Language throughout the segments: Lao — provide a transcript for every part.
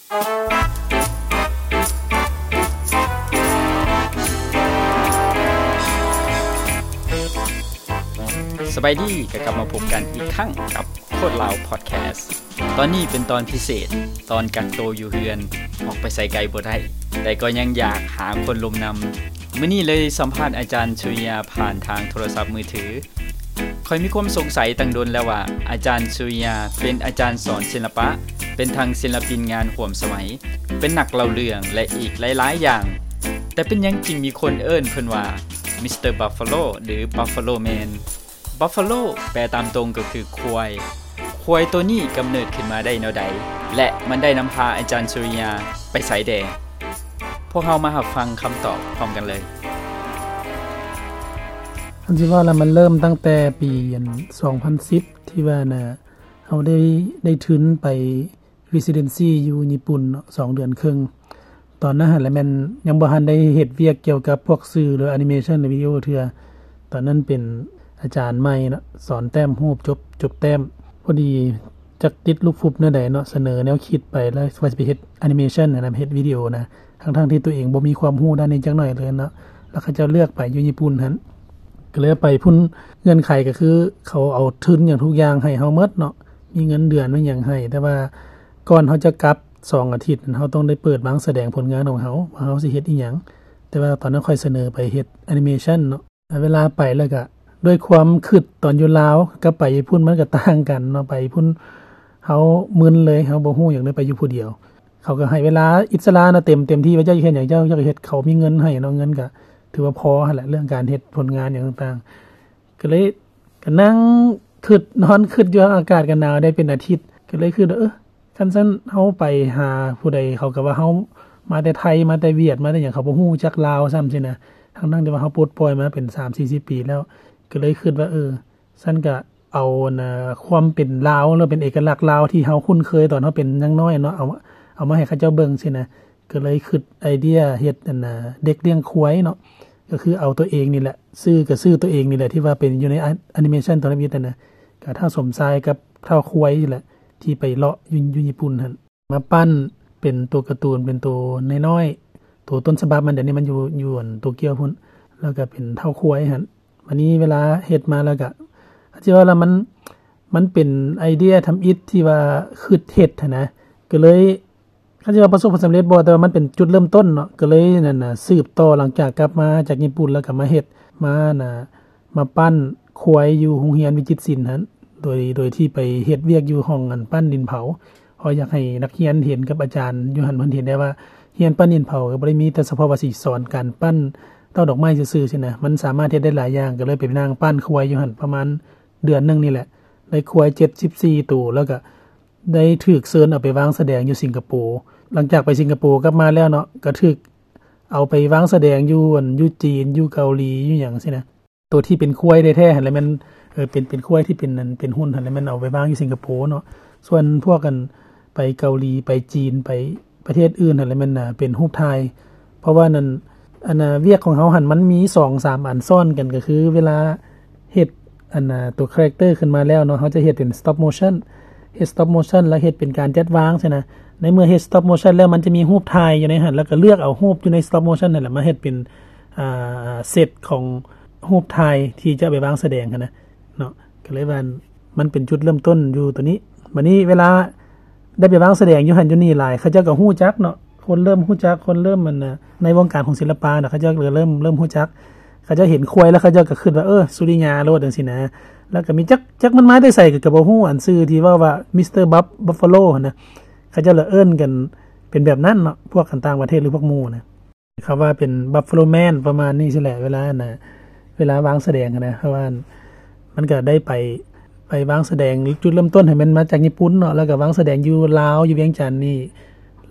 ສະບາຍດີ ກໍກັບມາພົບກັນອີກຄັ້ງກັບໂຄດລາວພອດແຄສ. ຕອນນີ້ເປັນຕອນພິເສດ, ຕອນກັກໂຕຢູ່ເຮືອນ, ອອກໄປໃສໄກບໍ່ໄດ້, ແຕ່ກໍຍັງຢາກຫາຄົນລົມນຳ. ມື້ນີ້ເລີຍສຳພາດອາຈານສຸລິຍາຜ່ານທາງໂທລະສັບມືຖື. ຂ້ອຍມີຄວາມສົງໄສຕັ້ງດົນແລ້ວວ່າ ອາຈານສຸລິຍາເປັນອາຈານສອນສິລະປະ, ເປັນທັງສິລະປິນງານຮ່ວມສະໄໝ, ເປັນນັກເລົ່າເລື່ອງ ແລະ ອີກຫຼາຍໆຢ່າງ. ແຕ່ເປັນຫຍັງຈຶ່ງມີຄົນເອີ້ນເພິ່ນວ່າ ມິສເຕີບັບຟາໂລ ຫຼື ບັບຟາໂລແມນ? ບັບຟາໂລ ແປຕາມຕົງກໍຄືຄວາຍ. ຄວາຍໂຕນີ້ກຳເນີດຂຶ້ນມາໄດ້ແນວໃດ ແລະ ມັນໄດ້ນຳພາອາຈານສຸລິຍາໄປໃສແດ່? ພວກເຮົາມາຮັບຟັງຄຳຕອບພ້ອມກັນເລີຍ. ຄັນຊິເວົ້າແລ້ວ ມັນເລີ່ມຕັ້ງແຕ່ປີ ອັນ ສອງພັນສິບ ທີ່ວ່ານະ ເຮົາໄດ້ ໄດ້ທຶນໄປ residency ຢູ່ຍີ່ປຸ່ນເນາະ ສອງເດືອນເຄິ່ງ. ຕອນນັ້ນຫັ້ນແຫຼະແມ່ນຍັງບໍ່ທັນໄດ້ເຮັດວຽກກ່ຽວກັບພວກສື່ ຫຼື animation ຫຼື ວິດີໂອເທື່ອ. ຕອນນັ້ນເປັນອາຈານໃໝ່ເນາະ ສອນແຕ້ມຮູບ ຈົບ ຈົບແຕ້ມ. ພໍດີຈັກຕິດລູກຟຸບແນວໃດເນາະ ສະເໜີແນວຄິດໄປ ແລ້ວວ່າຊິໄປເຮັດ animation ຫັ້ນນະ ເຮັດວິດີໂອນະ ທັງໆທີ່ຕົວເອງບໍ່ມີຄວາມຮູ້ດ້ານນີ້ຈັກໜ້ອຍເລີຍເນາະ. ແລ້ວເຂົາເຈົ້າເລືອກໄປຢູ່ຍີ່ປຸ່ນຫັ້ນ ກໍເລີຍໄປພຸ້ນ. ເງື່ອນໄຂກໍຄືເຂົາເອົາທຶນຫຍັງທຸກຢ່າງໃຫ້ເຮົາໝົດເນາະ ມີເງິນເດືອນ ມີຫຍັງໃຫ້. ແຕ່ວ່າກ່ອນເຮົາຈະກັບສອງອາທິດນັ້ນ ເຮົາຕ້ອງໄດ້ເປີດວາງສະແດງຜົນງານຂອງເຮົາ ວ່າເຮົາຊິເຮັດອີ່ຫຍັງ. ແຕ່ວ່າຕອນນັ້ນຂ້ອຍສະເໜີໄປເຮັດ animation ເນາະ. ເວລາໄປແລ້ວກະ ດ້ວຍຄວາມຄິດຕອນຢູ່ລາວກັບໄປຍີ່ປຸ່ນມັນກະຕ່າງກັນເນາະ. ໄປຍີ່ປຸ່ນເຮົາມຶນເລີຍ ເຮົາບໍ່ຮູ້ຫຍັງເລີຍ ໄປຢູ່ຜູ້ດຽວ. ເຂົາກໍໃຫ້ເວລາອິດສະຫຼະເນາະ ເຕັມ ເຕັມທີ່ ວ່າເຈົ້າຢາກເຮັດຫຍັງ ເຈົ້າ ເຈົ້າກໍເຮັດ. ເຂົາມີເງິນໃຫ້ເນາະ ເງິນກໍຖືວ່າພໍຫັ້ນແຫຼະ ເລື່ອງການເຮັດຜົນງານຫຍັງຕ່າງໆ. ກໍເລີຍກໍນັ່ງຄິດ ນອນຄິດຢູ່ ອາກາດກໍໜາວໄດ້ເປັນອາທິດ. ກໍເລີຍຄິດວ່າ ເອີ ຄັນຊັ້ນເຮົາໄປຫາຜູ້ໃດ ເຂົາກໍວ່າເຮົາມາແຕ່ໄທ ມາແຕ່ຫວຽດ ມາແຕ່ຫຍັງ ເຂົາບໍ່ຮູ້ຈັກລາວຊ້ຳຊີ້ນະ ທັງໆທີ່ວ່າເຮົາປົດປ່ອຍມາເປັນສາມສີ່ສິບປີແລ້ວ. ກໍເລີຍຄິດວ່າ ເອີ ຊັ້ນກະເອົາ ອັນນ່າ ຄວາມເປັນລາວ ຫຼື ເປັນເອກະລັກລາວທີ່ເຮົາຄຸ້ນເຄີຍຕອນເຮົາເປັນຍັງນ້ອຍເນາະ ເອົາ ເອົາມາໃຫ້ເຂົາເຈົ້າເບິ່ງຊີ້ນະ. ກໍເລີຍຄິດໄອເດຍເຮັດ ອັນນ່າ ເດັກລ້ຽງຄວາຍເນາະ ກໍຄືເອົາຕົວເອງນີ້ແຫຼະ ຊື່ກໍຊື່ຕົວເອງນີ້ແຫຼະ ທີ່ວ່າເປັນຢູ່ໃນ animation ຕອນທຳອິດຫັ້ນນະ ກໍທ້າວສົມຊາຍກັບທ້າວຄວາຍນີ້ແຫຼະ ທີ່ໄປເລາະຢູ່ ຢູ່ຍີ່ປຸ່ນຫັ້ນ. ມາປັ້ນເປັນໂຕກາຕູນ ເປັນໂຕນ້ອຍໆ ໂຕຕົ້ນສະບັບມັນ ດຽວນີ້ມັນຢູ່ ຢູ່ອັນໂຕກຽວພຸ້ນ ແລ້ວກະເປັນທ້າວຄວາຍຫັ້ນ. ບາດນີ້ເວລາເຮັດມາແລ້ວກະ ຊິເວົ້າລະ ມັນ ມັນເປັນໄອເດຍທຳອິດທີ່ວ່າຄິດເຮັດຫັ້ນນະ ກະເລີຍ ຄັນຊິວ່າປະສົບຜົນສຳເລັດບໍ່ ແຕ່ວ່າມັນເປັນຈຸດເລີ່ມຕົ້ນເນາະ ກະເລີຍນັ້ນນະ ສືບຕໍ່ ຫຼັງຈາກກັບມາຈາກຍີ່ປຸ່ນແລ້ວກະມາເຮັດ ມານະ ມາປັ້ນຄວາຍຢູ່ໂຮງຮຽນວິຈິດສິນຫັ້ນ ໂດຍ ໂດຍທີ່ໄປເຮັດວຽກຢູ່ຫ້ອງອັນປັ້ນດິນເຜົາ ເພາະຢາກໃຫ້ນັກຮຽນເຫັນກັບອາຈານຢູ່ຫັ້ນ ເພິ່ນເຫັນໄດ້ວ່າຮຽນປັ້ນດິນເຜົາກໍບໍ່ໄດ້ມີແຕ່ສະເພາະວ່າຊິສອນການປັ້ນເຕົ້າດອກໄມ້ຊື່ໆຊີ້ນະ ມັນສາມາດເຮັດໄດ້ຫຼາຍຢ່າງ ກໍເລີຍໄປນັ່ງປັ້ນຄວາຍຢູ່ຫັ້ນປະມານເດືອນໜຶ່ງນີ້ແຫຼະ ໄດ້ຄວາຍເຈັດສິບສີ່ໂຕ ແລ້ວກໍໄດ້ຖືກເຊີນເອົາໄປວາງສະແດງຢູ່ສິງກະໂປ. ຫຼັງຈາກໄປສິງກະໂປກັບມາແລ້ວເນາະ ກໍຖືກເອົາໄປວາງສະແດງຢູ່ ອັນ ຢູ່ຈີນ ຢູ່ເກົາຫຼີ ຢູ່ຫຍັງຊີ້ນະ. ໂຕທີ່ເປັນຄວາຍແທ້ໆຫັ້ນແຫຼະແມ່ນ ເອີ ເປັນ ເປັນຄວາຍທີ່ເປັນ ອັນ ເປັນຫຸ່ນຫັ້ນແຫຼະແມ່ນເອົາໄປວາງຢູ່ສິງກະໂປເນາະ. ສ່ວນພວກ ອັນ ໄປເກົາຫຼີ ໄປຈີນ ໄປປະເທດອື່ນຫັ້ນແຫຼະແມ່ນ ເປັນຮູບຖ່າຍ. ເພາະວ່ານັ້ນ ອັນ ວຽກຂອງເຮົາຫັ້ນມັນມີສອງສາມອັນຊ້ອນກັນ ກໍຄືເວລາເຮັດ ອັນ ຕົວຄາແຣັກເຕີຂຶ້ນມາແລ້ວເນາະ ເຮົາຈະເຮັດເປັນ stop motion ເຮັດ stop motion ແລ້ວເຮັດເປັນການຈັດວາງຊີ້ນະ. ໃນເມື່ອເຮັດ stop motion ແລ້ວ ມັນຈະມີຮູບຖ່າຍຢູ່ໃນຫັ້ນ ແລ້ວກໍເລືອກເອົາຮູບຢູ່ໃນ stop motion ຫັ້ນແຫຼະ ມາເຮັດເປັນ ອ່າ ເຊັດຂອງຮູບຖ່າຍທີ່ຈະໄປວາງສະແດງຫັ້ນນະເນາະ. ກໍເລີຍວ່າມັນເປັນຈຸດເລີ່ມຕົ້ນຢູ່ໂຕນີ້. ບາດນີ້ເວລາໄດ້ໄປວາງສະແດງຢູ່ຫັ້ນຢູ່ນີ້ຫຼາຍ ເຂົາເຈົ້າກໍຮູ້ຈັກເນາະ ຄົນເລີ່ມຮູ້ຈັກ ຄົນເລີ່ມ ອັນ ໃນວົງການຂອງສິລະປະນະ ເຂົາເຈົ້າກໍເລີ່ມ ເລີ່ມຮູ້ຈັກ. ເຂົາເຈົ້າເຫັນຄວາຍແລ້ວ ເຂົາເຈົ້າກໍຄິດວ່າ ເອີ ສຸລິຍາໂລດ ຈັ່ງຊີ້ນະ. ແລ້ວກໍມີຈັກ ຈັກມັນມາແຕ່ໃສກໍ ກໍບໍ່ຮູ້ ອັນຊື່ທີ່ເວົ້າວ່າ ມິສເຕີບັບ ບັບຟາໂລ ຫັ້ນນະ ເຂົາເຈົ້າລະເອີ້ນກັນເປັນແບບນັ້ນເນາະ ພວກກັນຕ່າງປະເທດ ຫຼື ພວກໝູ່ນະ ເຂົາວ່າເປັນບັບຟາໂລແມນ ປະມານນີ້ຊີ້ແຫຼະ. ເວລາ ອັນ ເວລາວາງສະແດງຫັ້ນນະ ເພາະວ່າມັນກໍໄດ້ໄປ ໄປວາງສະແດງ ຈຸດເລີ່ມຕົ້ນຫັ້ນແມ່ນມາຈາກຍີ່ປຸ່ນເນາະ ແລ້ວກໍວາງສະແດງຢູ່ລາວ ຢູ່ວຽງຈັນນີ້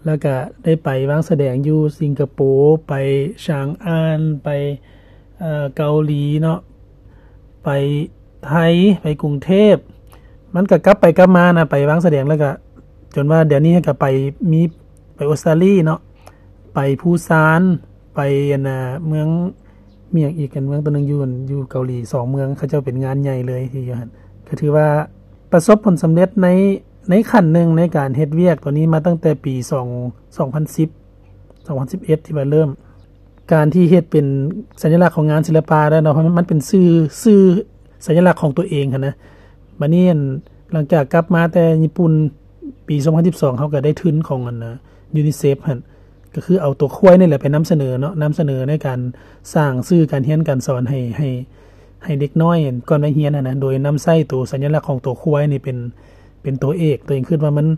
ແລ້ວກະໄດ້ໄປວາງສະແດງຢູ່ສິງກະໂປ ໄປຊາງອານ ໄປ ເອີ ເກົາຫຼີເນາະ ໄປໄທ ໄປກຸງເທບ. ມັນກະກັບໄປກັບມານະ ໄປວາງສະແດງ ແລ້ວກະຈົນວ່າດຽວນີ້ກະໄປ ມີໄປອົດສະຕາລີເນາະ ໄປພູຊານ ໄປ ອັນນະ ເມືອງ ມີຫຍັງອີກ ເມືອງໂຕໜຶ່ງຢູ່ ຢູ່ເກົາຫຼີ ສອງເມືອງ ເຂົາເຈົ້າເປັນງານໃຫຍ່ເລີຍທີ່ຢູ່ຫັ້ນ. ກະຖືວ່າປະສົບຜົນສຳເລັດໃນ ໃນຂັ້ນໜຶ່ງໃນການເຮັດວຽກໂຕນີ້ມາຕັ້ງແຕ່ປີສອງ ສອງພັນສິບ ສອງພັນສິບເອັດ ທີ່ວ່າເລີ່ມ ການທີ່ເຮັດເປັນສັນຍະລັກຂອງງານສິລະປະແລ້ວເນາະ ເພາະມັນ ມັນເປັນຊື່ ຊື່ສັນຍະລັກຂອງຕົວເອງຫັ້ນນະ. ບາດນີ້ ອັນ ຫຼັງຈາກກັບມາແຕ່ຍີ່ປຸ່ນປີສອງພັນສິບສອງ ເຮົາກໍໄດ້ທຶນຂອງ ອັນ UNICEF ຫັ້ນ ກໍຄືເອົາຕົວຄວາຍນີ້ແຫຼະໄປນຳສະເໜີເນາະ, ນຳສະເໜີໃນການສ້າງສື່ການຮຽນການສອນໃຫ້ ໃຫ້ ໃຫ້ເດັກນ້ອຍກ່ອນໄປຮຽນຫັ້ນນະ, ໂດຍນຳໃຊ້ໂຕສັນຍະລັກຂອງຕົວຄວາຍນີ້ເປັນ ເປັນຕົວເອກ. ຕົວເອງຄິດວ່າມັນ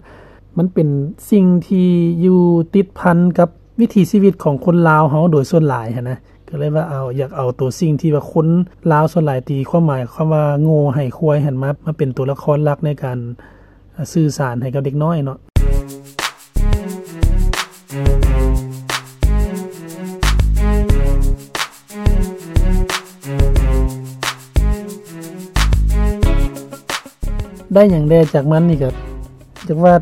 ມັນເປັນສິ່ງທີ່ຢູ່ຕິດພັນກັບວິຖີຊີວິດຂອງຄົນລາວເຮົາໂດຍສ່ວນຫຼາຍຫັ້ນນະ, ກໍເລີຍວ່າເອົາ ຢາກເອົາໂຕສິ່ງທີ່ວ່າຄົນລາວສ່ວນຫຼາຍຕີຄວາມໝາຍຄຳວ່າໂງ່ໃຫ້ຄວາຍຫັ້ນ ມາ ມາເປັນຕົວລະຄອນຫຼັກໃນການ ອ່າ ສື່ສານໃຫ້ກັບເດັກນ້ອຍເນາະ. ໄດ້ຫຍັງແດ່ຈາກມັນນີ້ ກໍຢາກວ່າ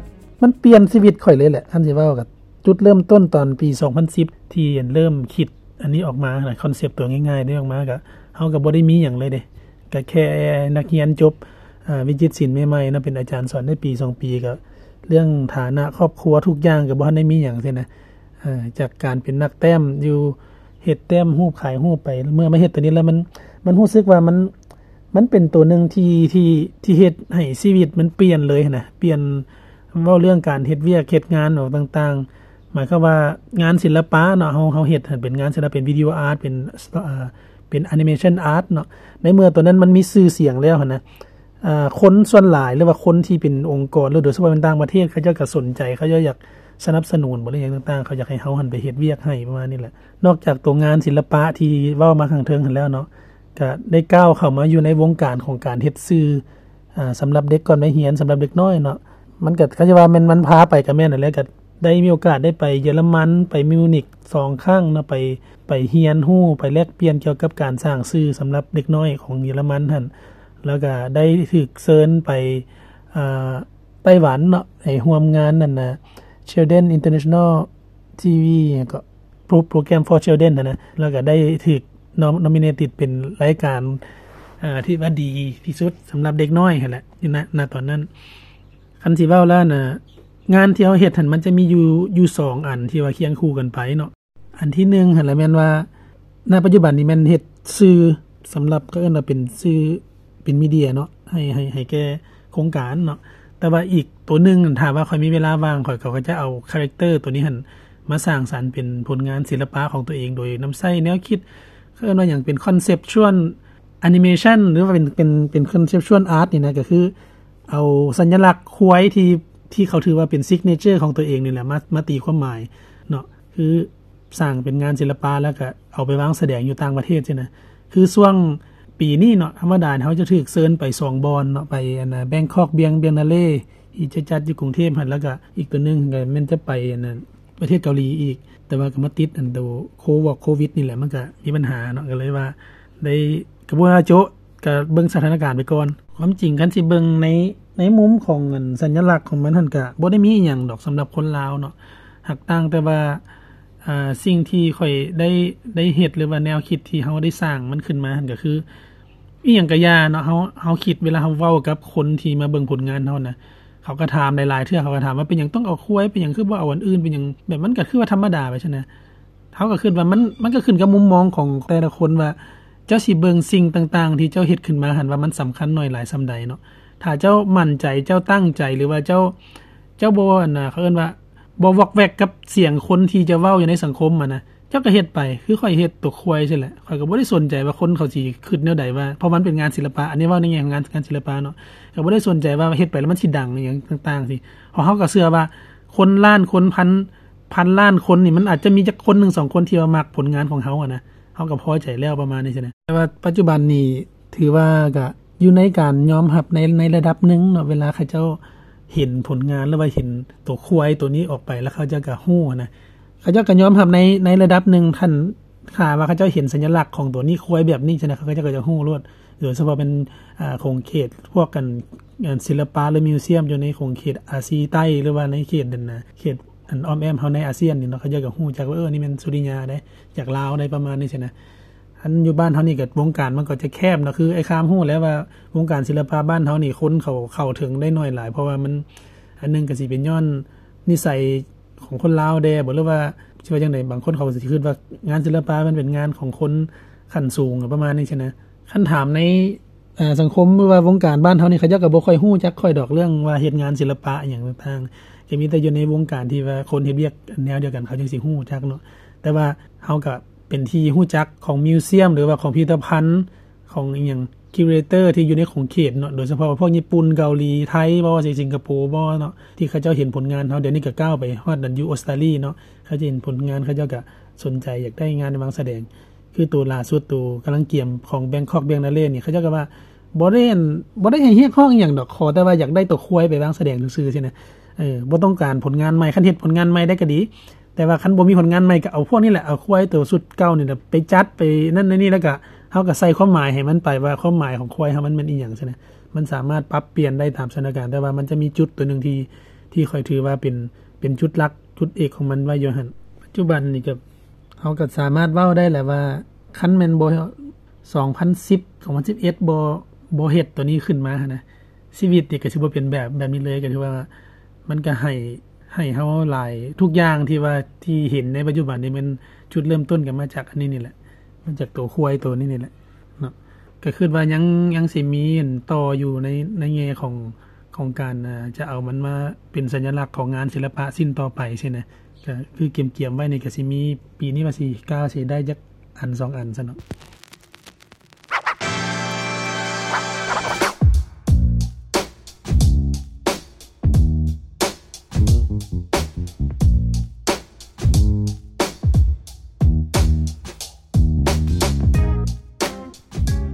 ມັນປ່ຽນຊີວິດຂ້ອຍເລີຍແຫຼະ. ຄັນຊິເວົ້າກໍຈຸດເລີ່ມຕົ້ນຕອນປີສອງພັນສິບ ທີ່ເລີ່ມຄິດອັນນີ້ອອກມານະ, ຄອນເຊັບຕົວງ່າຍໆນີ້ອອກມາ ກໍເຮົາກໍບໍ່ໄດ້ມີຫຍັງເລີຍເດ້, ກໍແຄ່ນັກຮຽນຈົບ ອ່າ ວິຈິດສິນໃໝ່ໆເນາະ, ເປັນອາຈານສອນໄດ້ປີສອງປີ ກໍເລື່ອງຖານະຄອບຄົວທຸກຢ່າງກໍບໍ່ທັນໄດ້ມີຫຍັງຊີ້ນະ. ເອີ ຈາກການເປັນນັກແຕ້ມຢູ່ ເຮັດແຕ້ມຮູບຂາຍຮູບໄປ, ເມື່ອມາເຮັດຕົວນີ້ແລ້ວ ມັນ ມັນຮູ້ສຶກວ່າມັນ ມັນເປັນຕົວໜຶ່ງທີ່ ທີ່ ທີ່ເຮັດໃຫ້ຊີວິດມັນປ່ຽນເລີຍນະ, ປ່ຽນ ເວົ້າເລື່ອງການເຮັດວຽກເຮັດງານອອກຕ່າງໆ, ໝາຍຄວາມວ່າງານສິລະປະເນາະ, ເຮົາ ເຮົາເຮັດໃຫ້ເປັນງານສິລະ ເປັນວິດີໂອອາດ ເປັນ ເປັນແອນິເມຊັນອາດເນາະ. ໃນເມື່ອຕົວນັ້ນມັນມີຊື່ສຽງແລ້ວຫັ້ນນະ, ເອີ ຄົນສ່ວນຫຼາຍ ຫຼືວ່າຄົນທີ່ເປັນອົງກອນ ຫຼືໂດຍສະເພາະເປັນຕ່າງປະເທດ ເຂົາເຈົ້າກໍສົນໃຈ, ເຂົາເຈົ້າຢາກສະໜັບສະໜູນບໍ ຫຼືຫຍັງຕ່າງໆ, ເຂົາຢາກໃຫ້ເຮົາຫັ້ນໄປເຮັດວຽກໃຫ້ ປະມານນີ້ແຫຼະ. ນອກຈາກຕົວງານສິລະປະທີ່ເວົ້າມາຂ້າງເທິງຫັ້ນແລ້ວເນາະ, ກະໄດ້ກ້າວເຂົ້າມາຢູ່ໃນວົງການຂອງການເຮັດສື່ ອ່າ ສຳລັບເດັກກ່ອນໄປຮຽນ, ສຳລັບເດັກນ້ອຍເນາະ. ມັນກະ ຄັນຈະວ່າແມ່ນມັນພາໄປກະແມ່ນຫັ້ນແຫຼະ, ກະໄດ້ມີໂອກາດໄດ້ໄປເຢຍລະມັນ, ໄປມິວນິກສອງຄັ້ງເນາະ, ໄປ ໄປຮຽນຮູ້, ໄປແລກປ່ຽນກ່ຽວກັບການສ້າງສື່ສຳລັບເດັກນ້ອຍຂອງເຢຍລະມັນຫັ້ນ, ແລ້ວກະໄດ້ຖືກເຊີນໄປ ອ່າ ໄຕ້ຫວັນເນາະ, ໄປຮ່ວມງານນັ້ນນະ Children International ທີ ຫຍັງເກາະ Pro- Program for Children ຫັ້ນນະ, ແລ້ວກໍໄດ້ຖືກ nom- nominated ເປັນລາຍການ ເອີ ທີ່ວ່າດີທີ່ສຸດສຳລັບເດັກນ້ອຍຫັ້ນແຫຼະ ຢູ່ ນ- ນະຕອນນັ້ນ. ຄັນຊິເວົ້າແລ້ວນະ ງານທີ່ເຮົາເຮັດຫັ້ນ ມັນຈະມີຢູ່ ຢູ່ສອງອັນທີ່ວ່າຄຽງຄູ່ກັນໄປເນາະ. ອັນທີໜຶ່ງຫັ້ນລະແມ່ນວ່າ ນະປັດຈຸບັນນີ້ແມ່ນເຮັດສື່ສຳລັບ ເຂົາເອີ້ນວ່າເປັນສື່ ເປັນມີເດຍເນາະ ໃຫ້ ໃຫ້ ໃຫ້ແກ່ໂຄງການເນາະ. ແຕ່ວ່າອີກໂຕໜຶ່ງ ຖ້າວ່າຂ້ອຍມີເວລາວ່າງ ຂ້ອຍກໍຈະເອົາຄາແຣັກເຕີໂຕນີ້ຫັ້ນມາສ້າງສັນເປັນຜົນງານສິລະປະຂອງຕົວເອງ ໂດຍນຳໃຊ້ແນວຄິດ ເຂົາເອີ້ນວ່າຫຍັງ ເປັນ conceptual animation ຫຼືວ່າເປັນ ເປັນ ເປັນ conceptual art ນີ້ນະ, ກໍຄືເອົາສັນຍະລັກຄວາຍທີ່ ທີ່ເຂົາຖືວ່າເປັນ signature ຂອງຕົວເອງນີ້ແຫຼະ ມາ ມາຕີຄວາມໝາຍເນາະ. ຄື ສ້າງເປັນງານສິລະປະ ແລ້ວກະເອົາໄປວາງສະແດງຢູ່ຕ່າງປະເທດຊີ້ນະ. ຄືຊ່ວງປີນີ້ເນາະ ທຳມະດາເຮົາຈະຖືກເຊີນໄປສອງບ່ອນເນາະ, ໄປອັນນະ Bangkok Biennale ທີ່ຈະຈັດຢູ່ກຸງເທບຫັ້ນ, ແລ້ວກະອີກຕົວໜຶ່ງກໍແມ່ນຈະໄປອັນນັ້ນ ປະເທດເກົາຫຼີອີກ, ແຕ່ວ່າກໍມາຕິດອັນໂຕໂຄ ໂຄວິດນີ້ແຫຼະ ມັນກະມີບັນຫາເນາະ, ກໍເລີຍວ່າໄດ້ ກໍບໍ່ວ່າໂຈະ ກະເບິ່ງສະຖານະການໄປກ່ອນ. ຄວາມຈິງຄັນຊິເບິ່ງໃນ ໃນມຸມຂອງອັນສັນຍະລັກຂອງມັນຫັ້ນ ກະບໍ່ໄດ້ມີອີ່ຫຍັງດອກສຳລັບຄົນລາວເນາະ, ຫາກຕ່າງແຕ່ວ່າ ອ່າ ສິ່ງທີ່ຂ້ອຍໄດ້ ໄດ້ເຮັດ ຫຼືວ່າແນວຄິດທີ່ເຮົາໄດ້ສ້າງມັນຂຶ້ນມາຫັ້ນ ກະຄືອີ່ຫຍັງກະຢ່າເນາະ, ເຮົາ ເຮົາຄິດເວລາເຮົາເວົ້າກັບຄົນທີ່ມາເບິ່ງຜົນງານເຮົານະ, ເຂົາກະຖາມຫຼາຍໆເທື່ອ, ເຂົາກະຖາມວ່າ ເປັນຫຍັງຕ້ອງເອົາຄວາຍ, ເປັນຫຍັງຄືບໍ່ເອົາອັນອື່ນ, ເປັນຫຍັງ ແບບມັນກະຄືວ່າທຳມະດາໄປຊັ້ນນະ. ເຮົາກໍຄິດວ່າມັນ ມັນກໍຂຶ້ນກັບມຸມມອງຂອງແຕ່ລະຄົນວ່າ ເຈົ້າຊິເບິ່ງສິ່ງຕ່າງໆທີ່ເຈົ້າເຮັດຂຶ້ນມາຫັ້ນວ່າມັນສຳຄັນໜ້ອຍຫຼາຍສ່ຳໃດເນາະ. ຖ້າເຈົ້າໝັ້ນໃຈ, ເຈົ້າຕັ້ງໃຈ ຫຼືວ່າເຈົ້າ ເຈົ້າບໍ່ ອັນນະ ເຂົາເອີ້ນວ່າບໍ່ວອກແວກກັບສຽງຄົນທີ່ຈະເວົ້າຢູ່ໃນສັງຄົມຫັ້ນນະ, ເຈົ້າກໍເຮັດໄປ. ຄືຂ້ອຍເຮັດຕົວຄວາຍຊີ້ແຫຼະ, ຂ້ອຍກໍບໍ່ໄດ້ສົນໃຈວ່າຄົນເຂົາຊິຄິດແນວໃດ ວ່າ ເພາະມັນເປັນງານສິລະປະ, ອັນນີ້ເວົ້າໃນແງ່ຂອງງານ ງານສິລະປະເນາະ, ກໍບໍ່ໄດ້ສົນໃຈວ່າເຮັດໄປແລ້ວມັນຊິດັງອີ່ຫຍັງຕ່າງໆຊີ້. ເພາະເຮົາກໍເຊື່ອວ່າຄົນລ້ານຄົນ ພັນ ພັນລ້ານຄົນນີ້ ມັນອາດຈະມີຈັກຄົນໜຶ່ງສອງຄົນທີ່ວ່າມັກຜົນງານຂອງເຮົາຫັ້ນນະ, ເຮົາກໍພໍໃຈແລ້ວ ປະມານນີ້ຊີ້ນະ. ແຕ່ວ່າປັດຈຸບັນນີ້ຖືວ່າກະຢູ່ໃນການຍອມຮັບໃນ ໃນລະດັບໜຶ່ງເນາະ, ເວລາເຂົາເຈົ້າເຫັນຜົນງານ ຫຼືວ່າເຫັນໂຕຄວາຍໂຕນີ້ອອກໄປ ແລ້ວເຂົາເຈົ້າກະຮູ້ຫັ້ນນະ, ເຂົາເຈົ້າກະຍອມຮັບໃນ ໃນລະດັບໜຶ່ງ. ຄັນຖ້າວ່າເຂົາເຈົ້າເຫັນສັນຍະລັກຂອງໂຕນີ້ ຄວາຍແບບນີ້ຊັ້ນນະ, ເຂົາເຈົ້າກະຈະຮູ້ໂລດ. ໂດຍສະເພາະເປັນ ອ່າ ຂົງເຂດພວກອັນ ອັນສິລະປະ ຫຼື ມິວຊຽມ ຢູ່ໃນຂົງເຂດອາຊີໃຕ້ ຫຼືວ່າໃນເຂດນັ້ນນະ ເຂດອັນອ້ອມແອ້ມເຮົາໃນອາຊຽນນີ້ເນາະ, ເຂົາເຈົ້າກໍຮູ້ຈັກວ່າ ເອີ ນີ້ແມ່ນສຸລິຍາເດ້ ຈາກລາວເດ້ ປະມານນີ້ຊີ້ນະ. ອັນຢູ່ບ້ານເຮົານີ້ກໍວົງການມັນກໍຈະແຄບເນາະ, ຄືອ້າຍຄາມຮູ້ແລ້ວວ່າວົງການສິລະປະບ້ານເຮົານີ້ ຄົນເຂົາເຂົ້າເຖິງໄດ້ໜ້ອຍຫຼາຍ ເພາະວ່າມັນ ອັນໜຶ່ງກໍຊິເປັນຍ້ອນນິໄສຂອງຄົນລາວແດ່ບໍ ຫຼືວ່າຊິວ່າຈັ່ງໃດ ບາງຄົນເຂົາກໍຊິຄິດວ່າງານສິລະປະມັນເປັນງານຂອງຄົນຂັ້ນສູງປະມານນີ້ຊີ້ນະ. ຄັນຖາມໃນ ເອີ່ ສັງຄົມ ຫຼືວ່າວົງການບ້ານເຮົານີ້ ເຂົາເຈົ້າກໍບໍ່ຄ່ອຍຮູ້ຈັກຂ້ອຍດອກ ເລື່ອງວ່າເຮັດງານສິລະປະອີ່ຫຍັງຕ່າງໆ ກໍມີແຕ່ຢູ່ໃນວົງການທີ່ວ່າຄົນເຮັດວຽກແນວດຽວກັນ ເຂົາຈຶ່ງຊິຮູ້ຈັກເນາະ. ແຕ່ວ່າເຮົາກໍເປັນທີ່ຮູ້ຈັກຂອງມິວຊຽມ ຫຼືວ່າຂອງພິພິທະພັນ ຂອງອີ່ຫຍັງ curator ທີ່ຢູ່ໃນຂົງເຂດເນາະ ໂດຍສະເພາະພວກຍີ່ປຸ່ນ ເກົາຫຼີ ໄທບໍ ຊິງກະໂປບໍເນາະ ທີ່ເຂົາເຈົ້າເຫັນຜົນງານເຮົາ. ດຽວນີ້ກໍກ້າວໄປຮອດນັ້ນ ຢູ່ອົດສະຕາລີເນາະ ເຂົາຈະເຫັນຜົນງານ ເຂົາເຈົ້າກໍສົນໃຈຢາກໄດ້ງານມາວາງສະແດງ. ຄືໂຕລ່າສຸດ ໂຕກຳລັງກຽມຂອງ Bangkok Biennale ນີ້ ເຂົາເຈົ້າກໍວ່າບໍ່ໄດ້ ບໍ່ໄດ້ໃຫ້ຮຽກຮ້ອງອີ່ຫຍັງດອກ ຂໍແຕ່ວ່າຢາກໄດ້ໂຕຄວາຍໄປວາງສະແດງຊື່ໆຊີ້ນະ. ເອີ ບໍ່ຕ້ອງການຜົນງານໃໝ່ ຄັນເຮັດຜົນງານໃໝ່ໄດ້ກໍດີ ແຕ່ວ່າຄັນບໍ່ມີຜົນງານໃໝ່ ກໍເອົາພວກນີ້ແຫຼະ ເອົາຄວາຍໂຕຊຸດເກົ່ານີ້ແຫຼະ ໄປຈັດໄປນັ້ນໄປນີ້ ແລ້ວກໍເຮົາກໍໃສ່ຄວາມໝາຍໃຫ້ມັນໄປ ວ່າຄວາມໝາຍຂອງຄວາຍເຮົາມັນແມ່ນອີ່ຫຍັງຊີ້ນະ. ມັນສາມາດປັບປ່ຽນໄດ້ຕາມສະຖານະການ ແຕ່ວ່າມັນຈະມີຈຸດໂຕໜຶ່ງທີ່ ທີ່ຂ້ອຍຖືວ່າເປັນ ເປັນຈຸດຫຼັກຈຸດເອກຂອງມັນໄວ້ຢູ່ຫັ້ນ. ປັດຈຸບັນນີ້ກໍ ເຮົາກໍສາມາດເວົ້າໄດ້ແຫຼະວ່າ ຄັນແມ່ນບໍ່ ສອງພັນສິບ ສອງພັນສິບເອັດ ບໍ່ ບໍ່ເຮັດໂຕນີ້ຂຶ້ນມາຫັ້ນນະ ຊີວິດນີ້ກໍຊິບໍ່ເປັນແບບ ແບບນີ້ເລີຍ. ກໍຖືວ່າມັນກໍໃຫ້ ໃຫ້ເຮົາຫຼາຍ ທຸກຢ່າງທີ່ວ່າ ທີ່ເຫັນໃນປັດຈຸບັນນີ້ ແມ່ນຈຸດເລີ່ມຕົ້ນກໍມາຈາກອັນນີ້ນີ້ແຫຼະ ມາຈາກໂຕຄວາຍໂຕນີ້ນີ້ແຫຼະເນາະ. ກໍຄິດວ່າຍັງ ຍັງຊິມີອັນຕໍ່ຢູ່ໃນ ໃນແງ່ຂອງ ຂອງການ ເອີ່ ຈະເອົາມັນມາເປັນສັນຍະລັກຂອງງານສິລະປະຊິ້ນຕໍ່ໄປຊີ້ນະ. ກໍຄືກຽມໆໄວ້ນີ້ ກໍຊິມີ ປີນີ້ວ່າຊິກ້າວ ຊິໄດ້ຈັກອັນສອງອັນຊັ້ນເນາະ.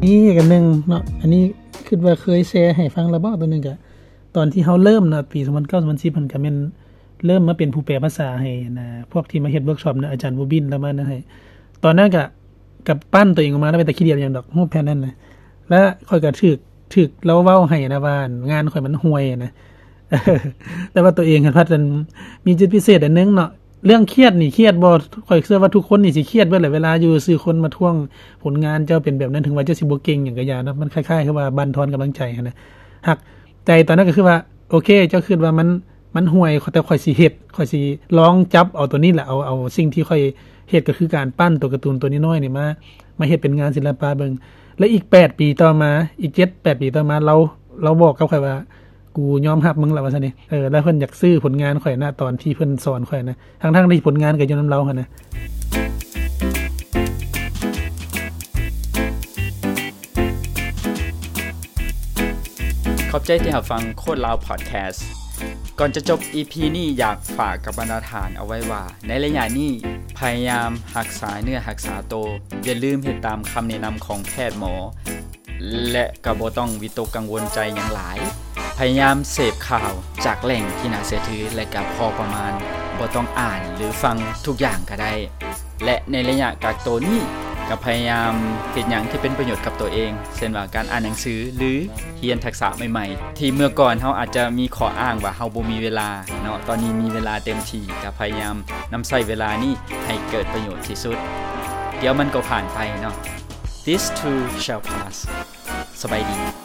ນີ້ອັນໜຶ່ງເນາະ ອັນນີ້ຄິດວ່າເຄີຍແຊໃຫ້ຟັງແລ້ວບໍ ໂຕໜຶ່ງກະ ຕອນທີ່ເຮົາເລີ່ມເນາະ ປີສອງພັນເກົ້າ ສອງພັນສິບ ຫັ້ນກະແມ່ນເລີ່ມມາເປັນຜູ້ແປພາສາໃຫ້ນະ ພວກທີ່ມາເຮັດເວີກຊັອບນະ ອາຈານບູບິນລາວມານະໃຫ້. ຕອນນັ້ນກະ ກະປັ້ນໂຕເອງອອກມາ ແລ້ວເປັນຕາຂີ້ດຽດຫຍັງດອກ ຮູບແຜ່ນນັ້ນນະ ແລ້ວຂ້ອຍກະຖືກ ຖືກລາວເວົ້າໃຫ້ນະວ່າ ງານຂ້ອຍມັນຫ່ວຍນະ ແຕ່ວ່າໂຕເອງຫັ້ນພັດອັນ ມີຈຸດພິເສດອັນໜຶ່ງເນາະ. ເລື່ອງຄຽດນີ້ຄຽດບໍ່? ຂ້ອຍເຊື່ອວ່າທຸກຄົນນີ້ຊິຄຽດເບິດແຫຼະ ເວລາຢູ່ຊື່ຄົນມາທ້ວງຜົນງານເຈົ້າເປັນແບບນັ້ນ ເຖິງວ່າເຈົ້າຊິບໍ່ເກັ່ງຫຍັງກໍຢ່າເນາະ ມັນຄ້າຍໆຄືວ່າບັ່ນທອນກຳລັງໃຈຫັ້ນນະ. ຫາກໃຈຕອນນັ້ນກໍຄືວ່າ ໂອເຄ ເຈົ້າຄິດວ່າມັນ ມັນຫ່ວຍ ແຕ່ຂ້ອຍຊິເຮັດ ຂ້ອຍຊິລອງຈັບເອົາໂຕນີ້ແຫຼະ ເອົາ ເອົາສິ່ງທີ່ຂ້ອຍເຮັດ ກໍຄືການປັ້ນໂຕກາຕູນໂຕນ້ອຍໆນີ້ມາ ມາເຮັດເປັນງານສິລະປະເບິ່ງ. ແລະ ອີກແປດປີຕໍ່ມາ ອີກເຈັດແປດປີຕໍ່ມາ ລາວ ລາວບອກກັບຂ້ອຍວ່າ ກູຍອມຮັບມຶງລະວ່າຊັ້ນເດ. ເອີ ແລ້ວເພິ່ນຢາກຊື້ຜົນງານຂ້ອຍນະ ຕອນທີ່ເພິ່ນສອນຂ້ອຍນະ ທັງໆທີ່ຜົນງານກໍຢູ່ນຳລາວຫັ້ນນະ. ຂອບໃຈທີ່ຮັບຟັງໂຄດລາວພອດແຄສ. ກ່ອນຈະຈົບອີພີນີ້ ຢາກຝາກກັບບັນດາທ່ານເອົາໄວ້ວ່າ ໃນໄລຍະນີ້ ພະຍາຍາມຮັກສາເນື້ອຮັກສາໂຕ, ຢ່າລືມເຮັດຕາມຄຳແນະນຳຂອງແພດໝໍ ແລະ ກໍບໍ່ຕ້ອງວິຕົກກັງວົນໃຈຫຍັງຫຼາຍ. ພະຍາຍາມເສບຂ່າວຈາກແຫຼ່ງທີ່ໜ້າເຊື່ອຖື ແລະ ກໍພໍປະມານ, ບໍ່ຕ້ອງອ່ານ ຫຼື ຟັງທຸກຢ່າງກໍໄດ້. ແລະ ໃນໄລຍະກັກໂຕນີ້ ກໍພະຍາຍາມເຮັດຫຍັງທີ່ເປັນປະໂຫຍດກັບໂຕເອງ, ເຊັ່ນວ່າການອ່ານໜັງສື ຫຼື ຮຽນທັກສະໃໝ່ໆ ທີ່ເມື່ອກ່ອນເຮົາອາດຈະມີຂໍ້ອ້າງວ່າເຮົາບໍ່ມີເວລາເນາະ, ຕອນນີ້ມີເວລາເຕັມທີ່, ກໍພະຍາຍາມນຳໃຊ້ເວລານີ້ໃຫ້ເກີດປະໂຫຍດທີ່ສຸດ. ດຽວມັນກໍຜ່ານໄປເນາະ. This too shall pass. ສະບາຍດີ.